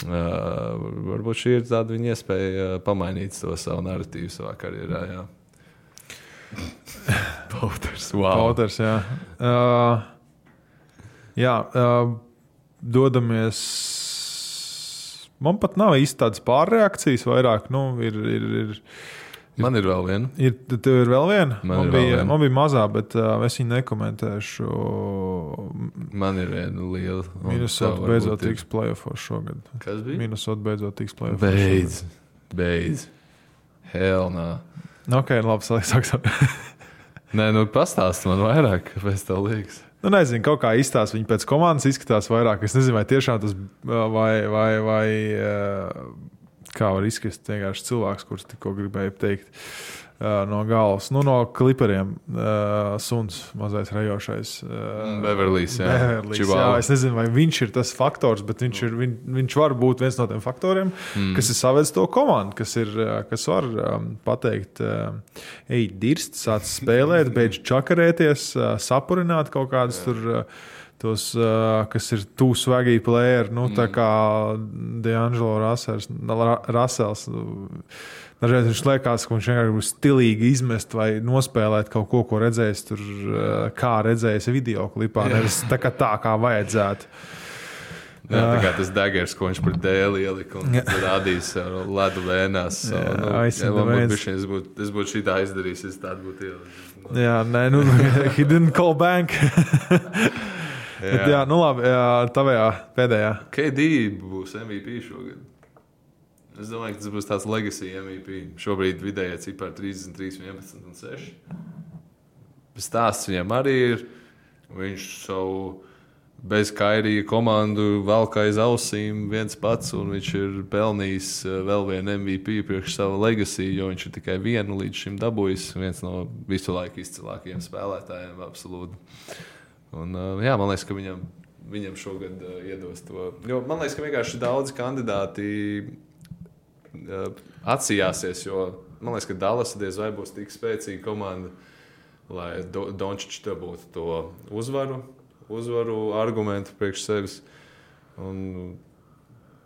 varbūt šī ir tāda viņa iespēja pamainīt to savu narratīvu savā karjerā. Jā. Pauters, wow. Pauters, dodamies. Man pat nav īsti tādas pārreakcijas, vairāk. Man ir vēl viena. Tev ir vēl viena? Man bija mazā, bet es viņu nekomentēšu. Man ir viena liela. Minnesota beidzot tiks playoffos šogad. Kas bija? Minnesota beidzot tiks playoffos. Beidz. Hell no. Ok, labi, sāksim. Nē, nu pastāst man vairāk, kāpēc tev liekas. Nu, nezinu, kaut kā izstāsta. Viņi pēc komandas izskatās vairāk. Es nezinu, vai tiešām tas vai kā var izskatīt vienkārši cilvēks, kurš tikko gribēja teikt no galvas. Nu, no kliperiem suns mazais rajošais. Beverlijs, jā. Jā. Es nezinu, vai viņš ir tas faktors, bet viņš var būt viens no tiem faktoriem, kas ir savedis to komandu, kas var pateikt, ej, dirst, sāc spēlēt, beidz čakarēties, sapurināt kaut kādus tur tos, kas ir too swaggy player, nu, tā kā D'Angelo Russells. Dažreiz viņš liekas, ka viņš vienkārši būs stilīgi izmest vai nospēlēt kaut ko, ko redzējis tur, kā redzējis video klipā, nevis tā kā vajadzētu. Jā, tā kā tas daggers, ko viņš par dēli ielika un rādījis ledu vēnās. Es būtu šitā izdarījis, es tādu būtu ielicis. Jā, nē, nu, he didn't call bank. Bet jā, nu labi, tavējā pēdējā. KD būs MVP šogad. Es domāju, ka tas būs tāds legacy MVP. Šobrīd vidējā cipara 33, 11 un 6. Stāsts viņam arī ir. Viņš savu bez Kairija komandu velk aiz ausīm viens pats, un viņš ir pelnījis vēl vienu MVP priekš savu legacy, jo viņš ir tikai vienu līdz šim dabūjis. Viens no visu laiku izcilākajiem spēlētājiem, absolūti. Un, jā, man liekas, ka viņam šogad iedos to. Jo man liekas, ka vienkārši daudzi kandidāti atsījāsies, jo man liekas, ka Dallas diez vai būs tik spēcīga komanda, lai Dončičs dabūtu to uzvaru argumentu priekš sevis. Un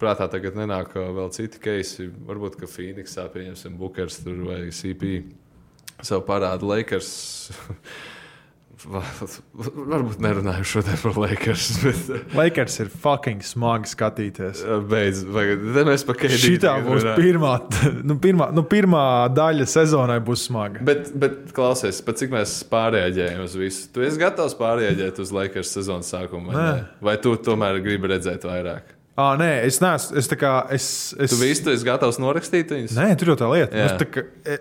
prātā tagad nenāk vēl citi keisi. Varbūt, ka Phoenixā pieņemsim Bookers tur vai CP savu parādu Lakers. Varbūt nerunāju šodien par Lakers. Bet Lakers ir fucking smagi skatīties. Beidz, mēs pa KD. Šitā būs pirmā daļa sezonai būs smaga. Bet klausies, pat cik mēs pārreaģējam uz visu. Tu esi gatavs pārreaģēt uz Lakers sezonas sākumu? Vai tu tomēr gribi redzēt vairāk? Nē, es neesmu. Tu esi gatavs norakstīt viņus? Nē, tur jau tā lieta.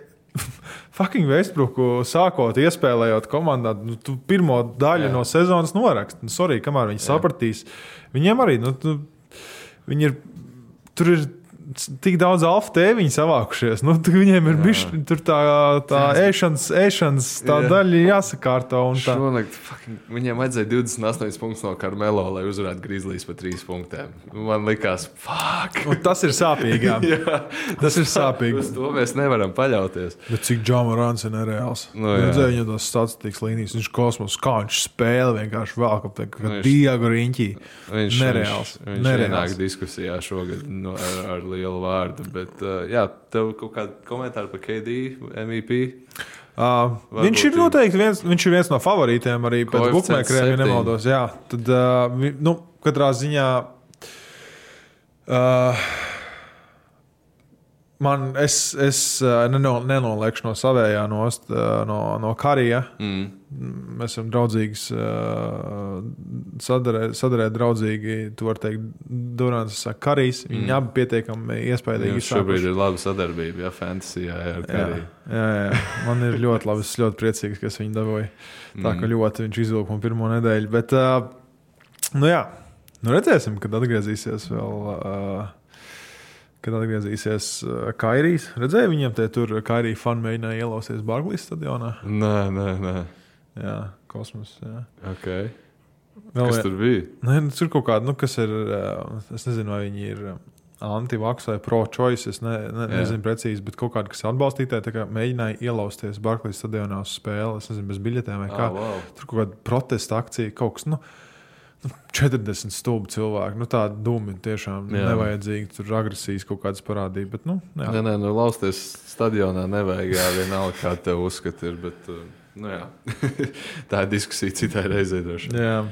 Fucking Westbrooku sākot, iespēlējot komandā, nu, tu pirmo daļu no sezonas norakst. Nu, sorry, kamēr viņi sapratīs. Viņiem arī, viņi ir, tur ir tik daudz alfa tēviņu savākušies. Nu, viņiem ir bišķi, tur tā ēšanas tā daļa jāsakārto. Šonakt, viņiem vajadzēja 28 punktus no Carmelo, lai uzvarētu Grizzlies pa 3 punktiem. Man likās, Un tas ir sāpīgi, jā. Tas ir sāpīgi. Uz to mēs nevaram paļauties. Bet cik Ja Morants ir nereāls. Redzēju viņu tos statistikas līnijas. Viņš kosmos, kā viņš spēle vienkārši vēl kā Diego Riņķī. Nereāls. Viņš ienāk diskusijā šogad ar lielu vārdu. Bet, jā, tev kaut kādi komentāri par KD, MVP? Viņš ir noteikti viens no favorītiem arī pēc bookmakeriem, ja nemaldos. Jā, tad, katrā ziņā es nenoliekšu no savējā nost, no Karija. Mēs esam draudzīgas, sadarēt draudzīgi, tu var teikt, Durants saka Karijs. Viņi abi pietiekami iespējīgi izsākuši. Šobrīd ir laba sadarbība, fantasyjā ar Kariju. Jā. Man ir ļoti labi, es ļoti priecīgs, ka es viņu dabūju. Tā ka ļoti viņš izvilka man pirmo nedēļu. Bet, redzēsim, kad atgriezīsies vēl... Kad atgriezīsies Kairijs. Redzēja viņiem tur Kairija fani mēģināja ielausties Barclays stadionā? Nē. Jā, kosmos, jā. Okay. Kas tur bija? Tur kaut kāda, kas ir, es nezinu, vai viņi ir anti-vax vai pro-choice, es nezinu precīzi, bet kaut kāda, kas atbalstītāji, tā kā mēģināja ielausties Barclays stadionā uz spēli, es nezinu, bez biļetēm vai kā. Wow. Tur kaut kāda protesta akcija, kaut kas, 40 stulbi cilvēki. Tāda dūmi tiešām nevajadzīgi. Tur agresijas kaut kādas parādīja. Bet, Nē, lausties stadionā nevajag. Jā, vienalga, kā tev uzskata ir. Bet, tā ir diskusija citai reizei droši. Jā.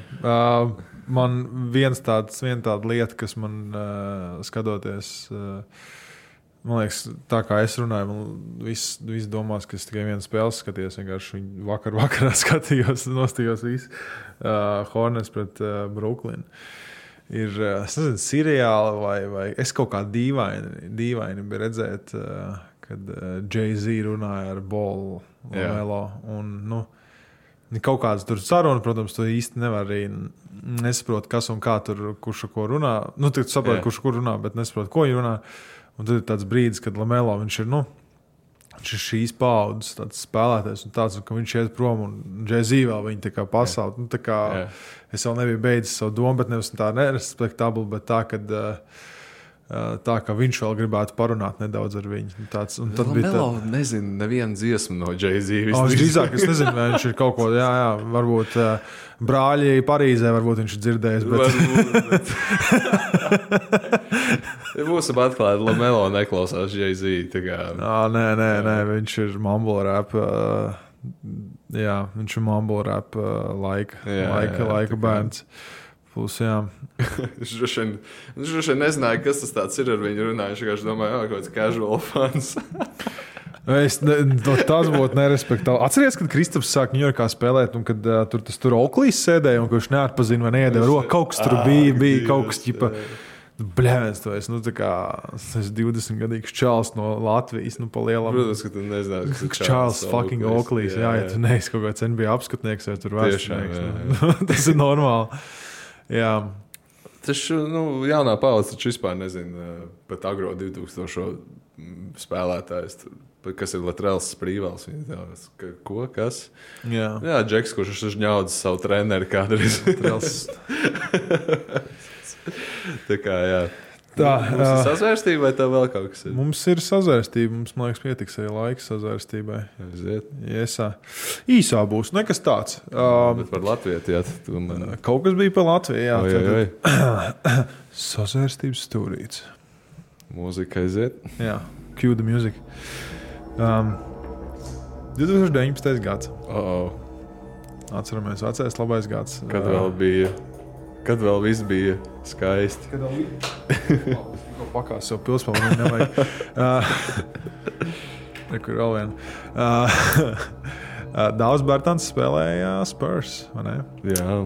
Man viena tāda lieta, kas man skatoties... Man liekas, tā kā es runāju, man viss domās, ka es tikai vienu spēli skatījos. Vienkārši vakarā skatījos, nostījos visu Hornets pret Brooklyn. Ir, es nezinu, seriāli vai es kaut kā dīvaini biju redzēt, kad Jay-Z runāja ar Bolu Lamelo. Un, kaut kāds tur saruna, protams, tu īsti nevar arī nesaprot, kas un kā tur, kurš ko runā. Tu saproti, kurš kur runā, bet nesaprot, ko viņi runā. Un tad ir tāds brīdis, kad Lamelo, viņš ir šīs paudzes tāds spēlētājs un tāds, ka viņš iet prom un Jay-Z vēl viņi tā kā pasauli. Es vēl nebiju beidzis savu domu, bet nevis tā nerespektabli, bet tā, ka viņš vēl gribētu parunāt nedaudz ar viņu. Lamelo nezinu nevienu dziesmu no Jay-Z. Drīzāk, es nezinu, vai viņš ir kaut ko, varbūt brāļi Parīzē, varbūt viņš ir dzirdējis. Bet... Būsim atklāti, Lamelo neklausās Jay-Z. Nē, viņš ir mumble rap. Viņš ir mumble rap laika bērns. Plus, Viņš droši vien nezināja, kas tas tāds ir ar viņu runāju. Viņš vienkārši domāja, kaut kāds casual fans. Tas būtu nerespektāli. Atceries, kad Kristaps sāk Ņujorkā spēlēt, un kad tur Oaklīs sēdēja, un kurš neatpazina vai neiedeva roku. Kaut kas tur bija kaut kas ķipa. Bļēns, tu esi, tas 20-gadīgs čāls no Latvijas, pa lielam. Protams, ka tu nezināji, kas ir čāls fucking Oaklīs. Ja tu neesi kaut kāds NBA apskatnieks vai tur vēstnieks. Tas ir normāli. Jā. Taču, jaunā paudze taču vispār nezina pat agro 2000 spēlētājs. Kas ir Latrels Sprīvels? Ko? Kas? Jā, Džeks, kurš ir ņaudzis savu treneri kādreiz. Tā kā, jā. Mums ir sazvērstība vai tev vēl kaut kas ir? Mums ir sazvērstība. Mums, man liekas, pietiks arī laika sazvērstībai. Iesā. Īsā būs. Nekas tāds. Bet par Latviju, jā. Kaut kas bija par Latviju, jā. Sazvērstības stūrīts. Mūzika aiziet. Jā. Cue the music. 2019. gads. Atceramies, vecais labais gads. Kad vēl viss bija skaisti. Kad vēl bija pakās sev pilspalvu, nevajag. Nekur vēl vien. Daudz Bertans spēlēja Spurs, vai ne? Jā.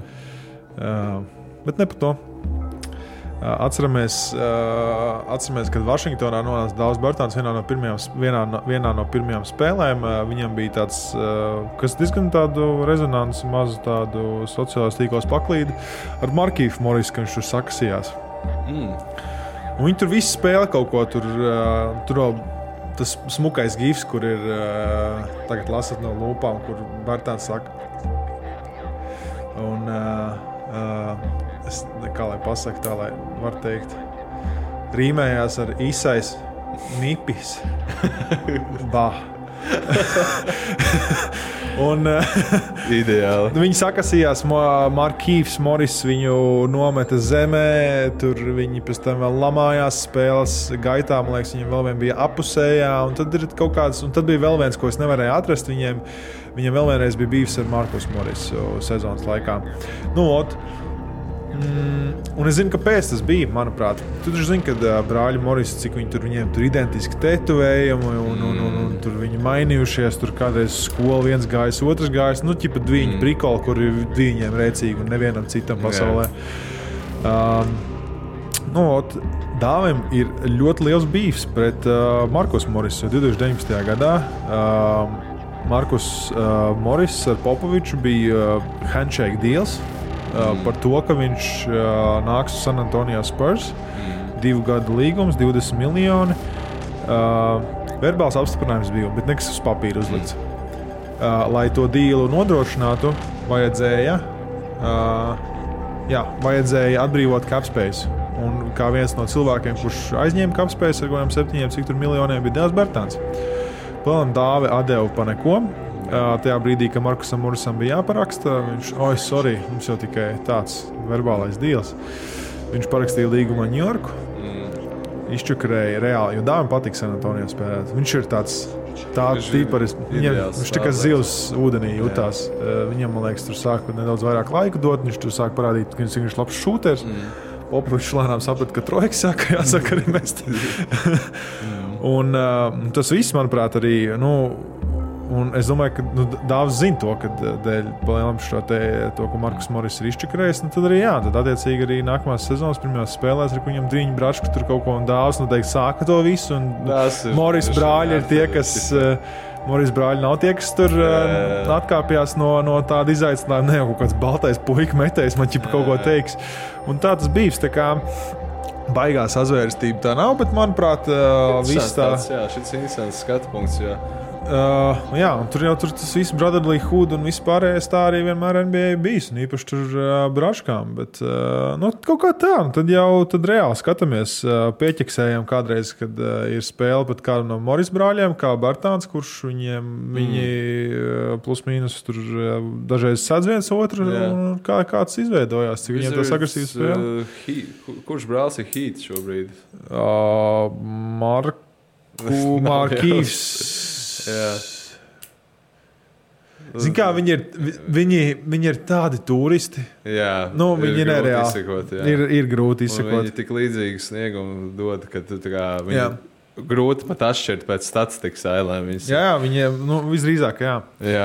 Bet ne par to. Atceramies, kad Vašingtonā nonāca Daudz Bertans vienā no pirmajām spēlēm. Viņam bija tāds, kas diezgan tādu rezonansu, mazu tādu sociālās tīklos paklīdi ar Markīfu Morisu, ka viņš tur sakasījās. Un viņi tur visi spēlē kaut ko, tur vēl tas smukais gifs, kur ir, tagad lasat no lūpām, kur Bertans saka. Un kā lai pasaka tā, lai var teikt, rīmējās ar Isais Nipis. Bah. Un ideāli. Viņi sakasījās, Markīfs Moris viņu nometa zemē, tur viņi pēc tam vēl lamājās spēles gaitā, man liekas, viņam vēl vien bija apusējā, un tad ir kaut kāds, un tad bija vēl viens, ko es nevarēju atrast, viņiem vēl vienreiz bija bijis ar Markus Morisu sezonas laikā. Un es zinu, kāpēc tas bija, manuprāt. Tu taču zini, kad brāļi Morisi, cik viņiem tur identiski tetovējumi un tur viņi mainījušies, tur kādreiz skola viens gājis, otrs gājis, ķipa dviņu prikoli, kur ir viņiem rēcīgi un nevienam citam pasaulē. Dāvim ir ļoti liels bīfs pret Markus Morisu 2019. gadā. Markus Moris ar Popoviču bija handshake deals. Par to, ka viņš nāks uz San Antonio Spurs, 2 gadu līgums, 20 miljoni. Verbāls apstiprinājums bija, bet nekas uz papīra uzlikts. Lai to dīlu nodrošinātu, vajadzēja atbrīvot cap space. Un kā viens no cilvēkiem, kurš aizņēma cap space ar 7 miljoniem, bija Devs Bertans. Plēlam dāvi atdeva pa neko. Tajā brīdī, kad Markusam Morisam bija jāparaksta, viņš, mums jau tikai tāds verbālais deals. Viņš parakstīja līgumu ar Ņujorku, izčakarēja reāli, jo dāvim patīk San Antonio spēlēt. Viņš ir tāds tīparis, viņš tikai zivs ūdenī jutās. Viņam, man liekas, tur sāk nedaudz vairāk laika dot, viņš tur sāk parādīt, ka viņš ir labs šūters. Popovičs lēnām saprata, ka trojka jāsaka arī mest. Un tas viss, manuprāt, arī, Un es domāju, ka Dāvs zina to, ka dēļ palielam to, ko Markus Moris ir izčakarējis, tad arī tad attiecīgi arī nākamās sezonas pirmajās spēlēs, ar viņam Driņu Bračku tur kaut ko un Dāvs noteikti sāka to visu, un Moris brāļi ir tie, kas... Moris brāļi nav tie, kas tur atkāpjās no tāda izaicinājuma. Ne jau kaut kāds baltais puika metējs, man ķipa kaut ko teiks. Un tā tas bijis, tā kā baigās azvērstība tā nav, bet manuprāt, viss tā... Jā, šis interesants skatu punkts, jā. Jā, un tur tas viss Brotherly Hood un viss pārējais tā arī vienmēr NBA bijis, un īpaši tur braškām, bet kaut kā tā, tad reāli skatāmies, pieķeksējam kādreiz, kad ir spēle pat kādam no Moris brāļiem, kā Bartāns, kurš viņi plus mīnus tur dažreiz sadz viens otru, un kāds izveidojās, cik viņiem tas agresīvs spēle. Kurš brālis ir Heat šobrīd? Markīvs. Jā. Zini kā, viņi ir tādi turisti. Jā, viņi nereāli izsekot, ir grūti izsekot. Viņi tik līdzīgi sniegumu dod, ka tu tā kā viņi grūti pat atšķirt pēc statistikas ailēm. Jā, viņiem visdrīzāk, jā. Jā,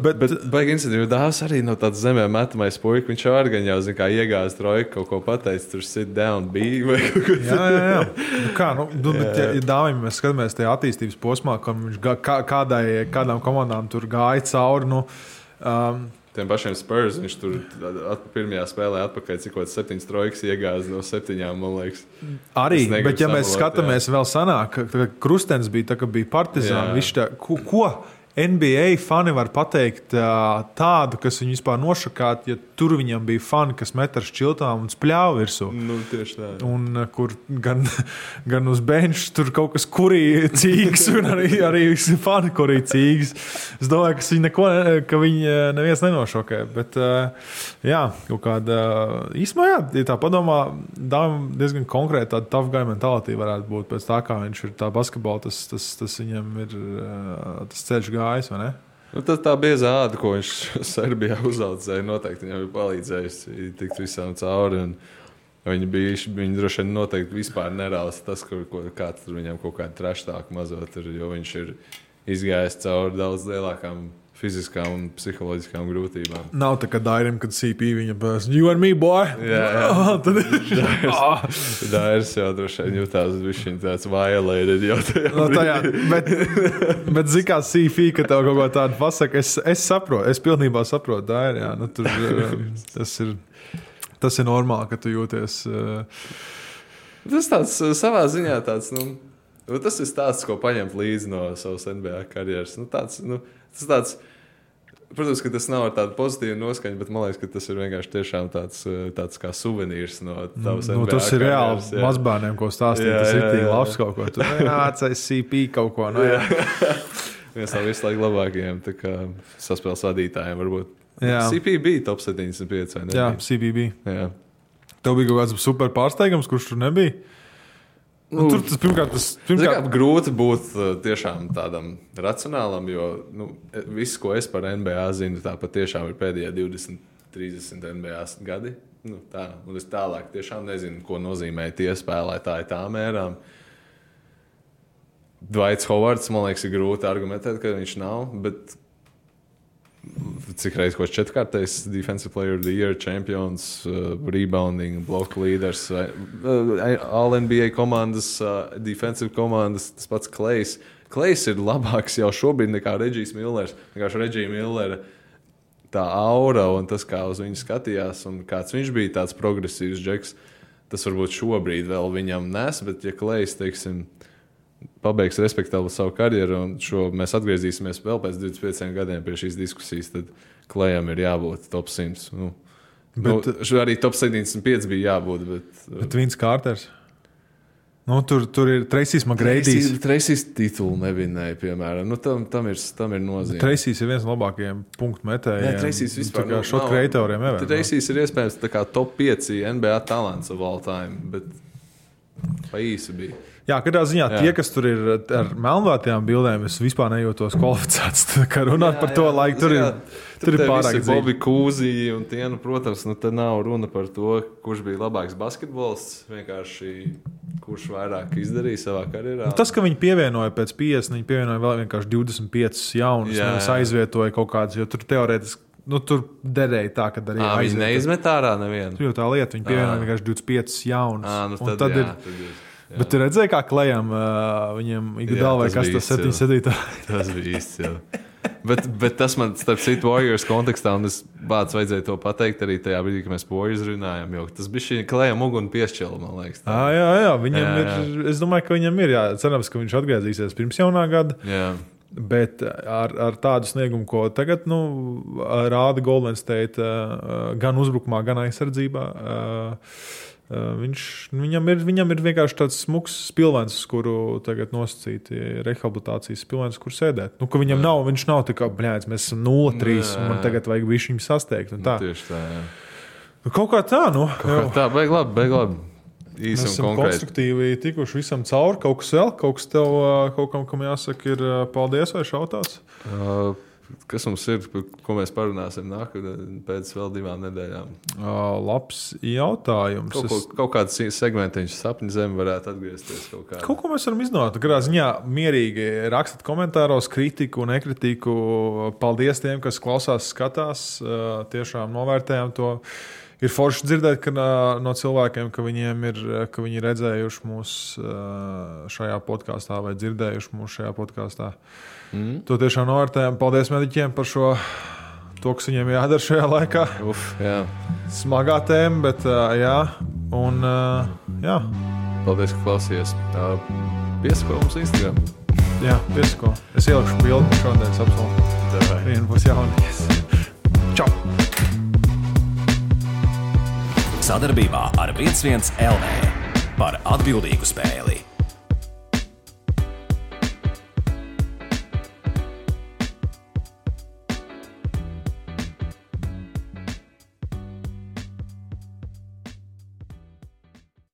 bet baigi incidenti, jo Dāvs arī no tādas zemē metamais puika, viņš arī gan jau, zin kā, iegāz trojku, kaut ko pateicis, tur sit down, be vai kaut ko. Jā. Bet ja Dāvim mēs skatāmies tajā attīstības posmā, ka viņš kādām komandām tur gāja cauri, tiem pašiem Spurs, viņš tur pirmajā spēlē atpakaļ, cik kaut 7 trojkas iegāz no 7, man liekas. Arī, bet ja mēs skatāmies vēl sanāk, ka Krustens bija tā, ka bija Partizāna, viņš tā, ko NBA fani var pateikt tādu, kas viņu vispār nošakāt, ja tur viņam bija fani, kas met ar šķiltām un spļāva virsū. Tieši tā. Un kur gan uz benča tur kaut kas kurīja cīgas, un arī fani kurīja cīgas. Es domāju, ka viņi neviens nenošokē, bet jā, kaut kāda īsmā, ja tā padomā, diezgan konkrēti tāda tough guy mentality varētu būt pēc tā, kā viņš ir tā basketbola, tas viņam ir tas ceļš gājis. Vai ne? Tā biezā āda, ko viņš Serbijā uzaudzēja, noteikti viņam ir palīdzējusi tikt visām cauri. Viņi droši vien noteikti vispār nerāls tas, kāds tur viņam kaut kādu treštāku mazot ir, jo viņš ir izgājis cauri daudz lielākām fiziskām un psiholoģiskām grūtībām. Nav tā, ka Dairim, kad CP viņa pēc, you and me, boy! Jā. Dairis jau droši vien jutās višķiņ tāds violated jau tajā. Bet zin kā CP, ka tev kaut ko tādu pasaka, es saprotu, es pilnībā saprotu Dairi, jā. Tas ir normāli, ka tu jūties... Tas tāds savā ziņā tāds, tas ir stāsts, ko paņemt līdzi no savas NBA karjeras. Tas tāds, protams, ka tas nav ar tādu pozitīvu noskaņu, bet man liekas, ka tas ir vienkārši tiešām tāds kā suvenīrs no tavas NBA tas ir karjeras. Reāli mazbērniem, ko stāstīt, tas ir tik labs kaut ko. Tu nācais CP kaut ko. Viens no visu laiku labākajiem saspēles vadītājiem varbūt. Jā. CP bija top 75, vai ne? Jā, CP bija. Jā. Tev bija kaut kāds super pārsteigums, kurš tur nebija? Tur tas pirmkārt... Grūti būt tiešām tādam racionālam, jo viss, ko es par NBA zinu, tā patiešām ir pēdējā 20-30 NBA gadi. Un es tālāk tiešām nezinu, ko nozīmē tie spēlētāji tā mērām. Dwights Howards, man liekas, ir grūti argumentēt, ka viņš nav, bet cik reiz ko 4-kārtais Defensive Player of the Year, champions, rebounding, block leaders, All-NBA komandas, defensive komandas, tas pats Klejs. Klejs ir labāks jau šobrīd nekā Regijs Millers. Vienkārši Regija Millera tā aura un tas, kā uz viņu skatījās un kāds viņš bija tāds progresīvs džeks, tas varbūt šobrīd vēl viņam nes, bet ja Klejs, teiksim, pabeigs respektabli savu karjeru, un mēs atgriezīsimies vēl pēc 25 gadiem pie šīs diskusijas, tad Klejam ir jābūt top 100. Arī top 75 bija jābūt. Bet Vince Carters? Tur ir Tracy's McGrady's. Tracy's titulu nevinēja, piemēram. Tam ir nozīme. Tracy's ir viens no labākajiem punktu metējiem. Jā, Tracy's vispār nav. Šot kreatoriem ever. Tracy's ir iespējams tā kā top 5 NBA talants of all time, bet pa īsi bija. Jā, katrā ziņā tie, kas tur ir ar melnvātajām bildēm, es vispār nejūtos kvalificēts. Kā runāt par to laiku, tur ir pārāk dziļi. Bobi Kūzī un tie, protams, te nav runa par to, kurš bija labāks basketbolists, vienkārši kurš vairāk izdarīja savā karjerā. Tas, ka viņi pievienoja pēc 50, viņi pievienoja vēl vienkārši 25 jaunus, nevis aizvietoja kaut kādas, jo tur teorētiski, tur derēja tā, ka arī aizvietoja. Viņi neizmet ārā nevienu. Tur jau tā lieta, viņi pievienoja vienkārši 25 jaunus. Tad ir. Jā. Bet tu redzēji, kā Klejam viņam Iguodala vai kas tas 7-7? Tas bija īsts, jā. Bet tas man, starp citu, Warriors kontekstā, un es vajadzēja to pateikt arī tajā brīdī, kad mēs Warriors runājām, jo tas bija šī Klejam uguni piešķila, man liekas. Jā, viņam ir, es domāju, ka viņam ir, cerams, ka viņš atgriezīsies pirms jaunā gada. Jā. Bet ar tādu sniegumu, ko tagad rāda Golden State gan uzbrukumā, gan aizsardzībā, viņam ir vienkārši tāds smuks spilvens, kuru tagad nosacīti rehabilitācijas spilvens, kur sēdēt. Ka viņam viņš nav tā kā, mēs esam 0-3 un man tagad vajag visu viņu sasteigt. Tieši tā, jā. Kaut kā tā, Kaut kā tā, beig labi. Mēs esam konstruktīvi tikuši visam cauri. Kaut kas vēl, kaut kam jāsaka ir paldies vai šautās? Kas mums ir, ko mēs parunāsim pēc vēl 2 nedēļām? Labs jautājums. Kaut kāds segmentiņš sapņu zemi varētu atgriezties kaut kā. Kaut ko mēs varam izdomāt. Katrā ziņā mierīgi rakstat komentāros kritiku, nekritiku. Paldies tiem, kas klausās, skatās. Tiešām novērtējam to. Ir forši dzirdēt no cilvēkiem, ka viņi ir redzējuši mūs šajā podkāstā vai dzirdējuši mūs šajā podkāstā. To tiešām novērtējam. Paldies mediķiem par to, kas viņiem jādara šajā laikā. Jā. Smagā tēma, bet jā. Un jā. Paldies, ka klausījies. Piesako mums Instagram. Jā, piesako. Es ielikšu bildi šodienas apsolu. Vienu būs jaunies. Čau! Sadarbībā ar 11 LV par atbildīgu spēli.